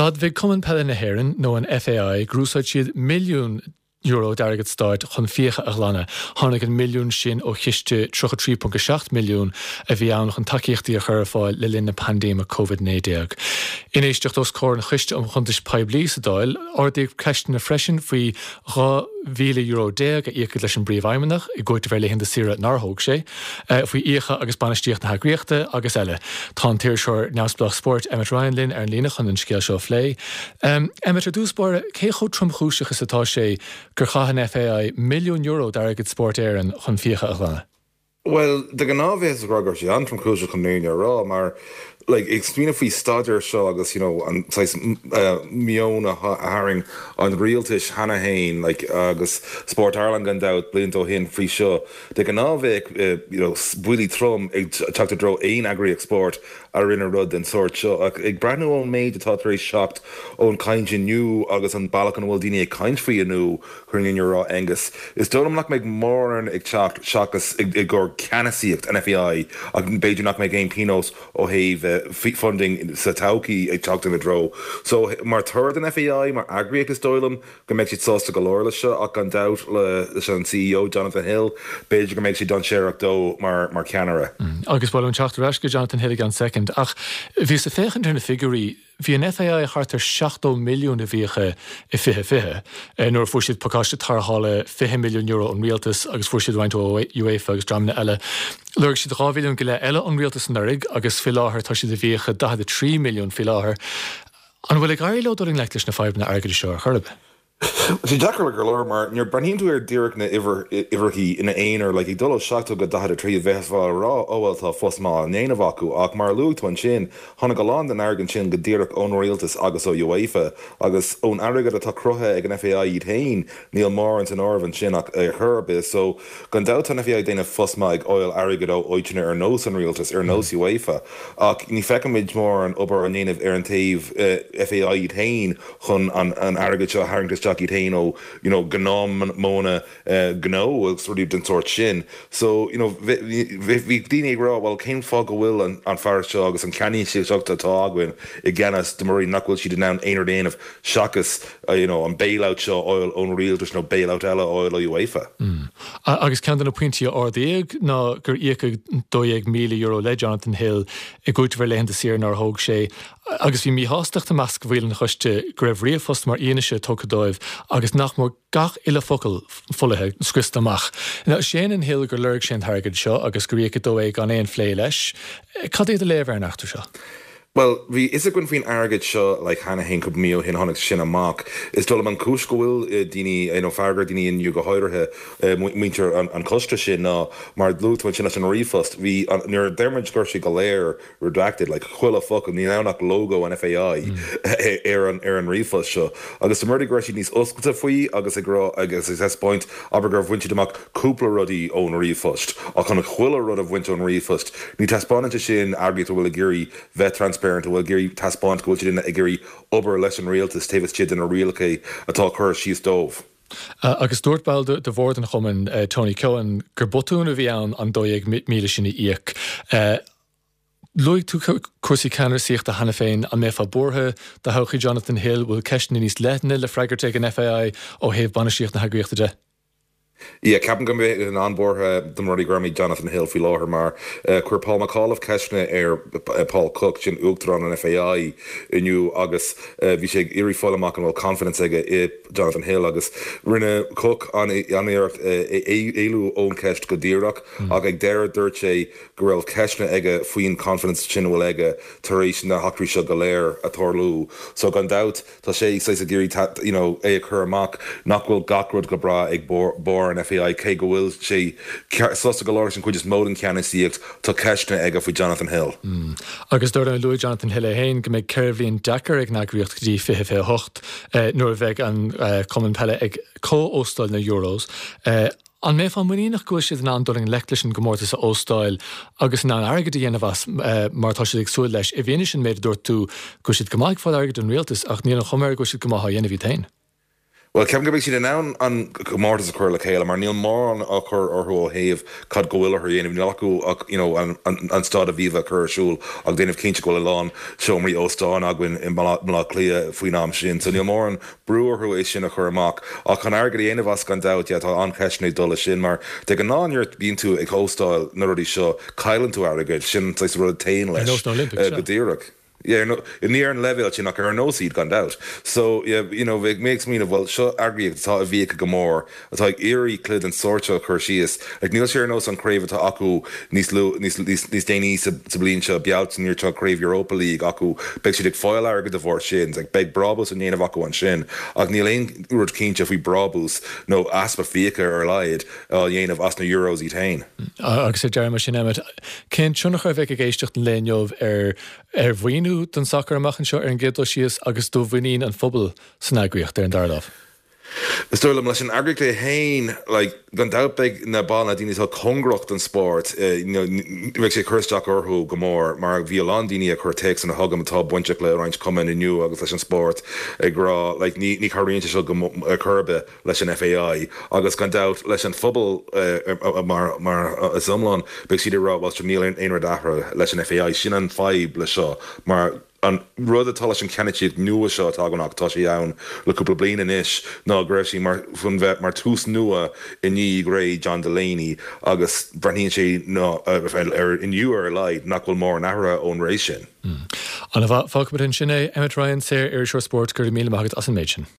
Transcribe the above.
D'admhaigh Cumann Peile na hÉireann, nó an FAI, gur úsáid siad €1,000,000 d'airgead stáit chun fiacha a ghlanadh. Tháinig an milliún sin ó chiste €33.7 milliún a bhí ann chun tacaíochtaí a chur ar fáil le linn na paindéime Covid-19. In éisteacht os comhair an Choiste um Chuntais Poiblí sa Dáil, ardaíodh ceisteanna freisin faoi €12,000 a íocadh leis an bPríomhfheidhmeannach i gcúiteamh ar laethanta saoire nár thóg sé, faoi fhiacha agus bainistíocht na heagraíochta agus eile. Tá an t-iriseoir neamhspleách spóirt Emmet Ryan linn ar an líne chun an scéal seo a phlé. Emmet, ar dtús báire, cé chomh tromchúiseach is atá sé gur chaith an FAI €1,000,000 d'airgead Spórt Éireann chun fiacha a ghlanadh? Bhuel, de ghnáth bheifeá ag rá go raibh sé an-tromchúiseach chun an fhírinne a rá, mar like ag smaoineamh faoi staidéar seo agus you know an saghas meon a tharraing an rialtais cheana féin like agus Sport Ireland gan dabht blianta ó shin faoi seo, de ghnáth bheadh you know buillí trom ag teacht i dtreo aon eagraíocht spóirt a rinne rud den sórt seo. Ach ag breathnú ón méid atá tar éis teacht ón chaint inniu agus an bealach ina bhfuil daoine ag caint faoi inniu, Chun an fhírinne a rá Aengus, is dóigh liom nach mbeidh mórán ag teacht seachas i gcomhair ceannasaíocht an FAI ach b'fhéidir nach mbeidh aon pionós ó thaobh funding sa todhchaí ag teacht ina dtreo. So mar thoradh don FAI mar eagraíocht is dóigh liom go mbeidh siad sásta go leor leis seo ach gan dabht leis an CEO Jonathan Hill b'fhéidir go mbeidh sé dainséarach dó mar mar cheannaire. Agus ba mhaith liom teacht ar ais go Jonathan Hill i gceann soicind ach bhíos ag féachaint ar na figiúirí Bhí an FAI thart ar €70 milliún i bhfiacha i 2020, nuair a fuair siad pacáiste tarrthála €20 milliún ón rialtas agus fuair siad roinnt ó UEFA agus dreamanna eile. Lorg siad 2 bhilliún go leith eile ón rialtas anuraidh agus faoi láthair tá siad i bhfiacha 43 milliún faoi láthair. An bhfuil ag éirí leo dul i ngleic leis na fadhbanna airgeadais seo ar chor ar bith? Tá sé deacair go leor mar nuair breathnaíonn tú ar díreach na uimhreachaí ina aonar, like ag dul ó 70 go 43 bheifeá ag rá oh well tá fos maith á ndéanamh acu ach mar a luaigh tú ansin tháinig a lán den airgead sin go díreach ón rialtas agus ó UEFA agus ón airgead atá cruthaithe ag an FAI iad féin níl mórán san áireamh ansin ach ar chor ar bith so gan dabht tá an FAI ag déanamh fos maith ag fháil airgead ó áiteanna ar nós an rialtas ar nós UEFA ach ní feicimid mórán obair á ndéanamh ar an taobh FAI iad féin chun an airgead seo a tharraingt isteach iad féin ó you know gnáthmhodhanna gnó agus rudaí den sórt sin. So you know bhí daoine ag rá bhuel cén fáth go bhfuil an fear seo agus an ceannasaíocht atá againn i gceannas de mar nach bhfuil siad in ann aon rud a dhéanamh seachas you know an bailout seo a fháil ón rialtas nó bailout eile a fháil ó UEFA. Agus ceann de na pointí a ardaíodh ná gur íocadh €12,000 le Jonathan Hill i gcúiteamh ar laethanta saoire nár thóg sé. Agus bhí míshástacht i measc bhaill an choiste go raibh ríomhphost mar fhianaise tugtha dóibh agus nach mór gach uile focal folaithe, scriosta amach. Now, séanann Hill gur lorg sé an t-airgead seo agus gur íocadh dó é gan aon phlé leis. Cad é do léamh ar an eachtra seo? Bhuel, bhí fhios againn faoin airgead seo like cheana féin cúpla mí ó shin tháinig sin amach. Is dóigh liom an chúis go bhfuil daoine, you know, fearg ar daoine inniu go háirithe muintir an choiste sin ná mar a luaigh tú ansin leis an ríomhphost, bhí an, nuair a deir muid go raibh sé go léir redacted, like chuile focal, níl ann ach logo an FAI ar an ar an ríomhphost seo. Agus dá mba rud é go raibh siad níos oscailte faoi agus ag rá agus ag taispeáint, abair gur bhain siad amach cúpla rudaí ón ríomhphost, ach chun chuile rud a bhaint ón ríomhphost, ní taispeánann sé sin eagraíocht a bhfuil ag iarraidh bheith transparent, a bhfuil ag iarraidh taispeáint go bhfuil siad ag iarraidh obair leis an rialtas taobh istigh de na rialacha atá curtha síos dóibh. Agus dúirt ball de bhord an chumainn, Tony Keohane, gur botún a bhí ann an 12,000 sin a íoc. Luaigh tú cúrsaí ceannasaíochta cheana féin. An mbeifeá buartha do thodhchaí Jonathan Hill? Bhfuil ceisteanna níos leithne le freagairt ag an FAI ó thaobh bainistíocht na heagraíochta de? Yeah, ceapaim go mbeinn an-bhuartha dá mba rud é gurb é Jonathan Hill faoi láthair mar chuir Paul McAuliffe ceisteanna ar Paul Cooke, sin Uachtarán an FAI inniu agus bhí sé ag iarraidh fáil amach an bhfuil confidence aige i Jonathan Hill agus rinne Cooke an-iarracht éalú ón cheist go díreach ach ag deireadh dúirt sé go raibh ceisteanna aige faoin confidence sin a bhfuil aige tar éis na heachtraí seo go léir a tarlú. So gan dabht tá sé saghas ag iarraidh you know é a chur amach nach bhfuil gach rud go breá ag barr an FAI cé go bhfuil sé sásta go leor leis an chuid is mó den cheannasaíocht tá ceisteanna aige faoi Jonathan Hill. Agus dar ndóigh luaigh Jonathan Hill é féin go mbeidh 4 bhliain deacair ag an eagraíocht go dtí 2028 nuair a bheidh an cumann peile ag comh-óstáil na Euros. An mbeifeá muiníneach go bhfuil siad in ann dul i ngleic leis an gcomórtas a óstáil agus in ann airgead a dhéanamh as mar atá siad ag súil leis, i bhfianaise an méid a dúirt tú go bhfuil siad go maith ag fáil airgid ón rialtas ach níl an chuma air go bhfuil siad go maith á dhéanamh iad féin? Bhuel, ceapaim go mbeidh siad in ann an comórtas a chur le chéile mar níl mórán á chur orthu ó thaobh cad go bhfuil orthu a dhéanamh. Níl acu ach you know an an Staid Aviva a chur ar siúl agus déanamh cinnte go bhfuil a lán seomraí óstáin againn i mBaile Átha Cliath faoin am sin. So níl mórán brú orthu é sin a chur amach. Ach chun airgead a dhéanamh as gan dabht, yeah, tá an-cheisteanna ag dul leis sin mar de ghnáth nuair a bíonn tú ag óstáil na rudaí seo cailleann tú airgead, sin an saghas rud a théann leis. Ar nós na Olympics, sea. Go díreach. Yeah, no, ní ar an leibhéal sin ach ar nós iad gan dabht. So, yeah, you know, bheadh mé ag smaoineamh, bhuel, seo eagraíocht atá i bhfiacha go mór, atá ag iarraidh cluiche den sórt seo a chur síos. Like, níl sé ar nós an chraobh atá acu níos lu, níos, níos, níos déanaí sa, sa bhliain seo, Bealtaine, nuair atá craobh Europa League acu, beidh siad ag fáil airgead de bharr sin, like, beidh brábús á ndéanamh acu ansin. Ach níl aon rud cinnte faoi brábús nó easpa fiacha ar a laghad á dhéanamh as na Euros iad féin. Agus ar deireadh mar sin, Emmet, cén tionchar a bheidh ag éisteacht an lae inniu ar ar mhaoiniú don sacar amach anseo ar an gcéad dul síos agus do mhuinín an phobail san eagraíocht ar an dara lámh? Is dóigh liom, leis an eagraíocht é féin, like, gan dabht beidh na baill, na daoine atá cóngarach don spórt, you know, beidh sé ag cur isteach orthu go mór mar bhí a lán daoine ag cur téacsanna chugam atá bainteach le roinnt cumainn inniu agus leis an spórt ag rá, like, ní, ní chabhraíonn sé seo go, ar chor ar bith. leis an FAI agus gan dabht leis an phobal mar is iomlán, beidh siad ag rá bhuel sure níl aon rud athraithe leis an FAI. Sin an fadhb le seo mar an rud atá leis an ceannlitríocht nua seo atá againn ach tá sé ann le cúpla bliain anois ná go raibh sí mar chun bheith mar tús nua i ndiaidh ré John Delaney agus breathnaíonn sé ná ar inniu ar a laghad nach bhfuil mórán athraithe ón ré sin. Ana-mhaith. Fágfaimid ansin é. Emmet Ryan, Saor-Iriseoir Spóirt, go raibh míle maith agat as an méid sin.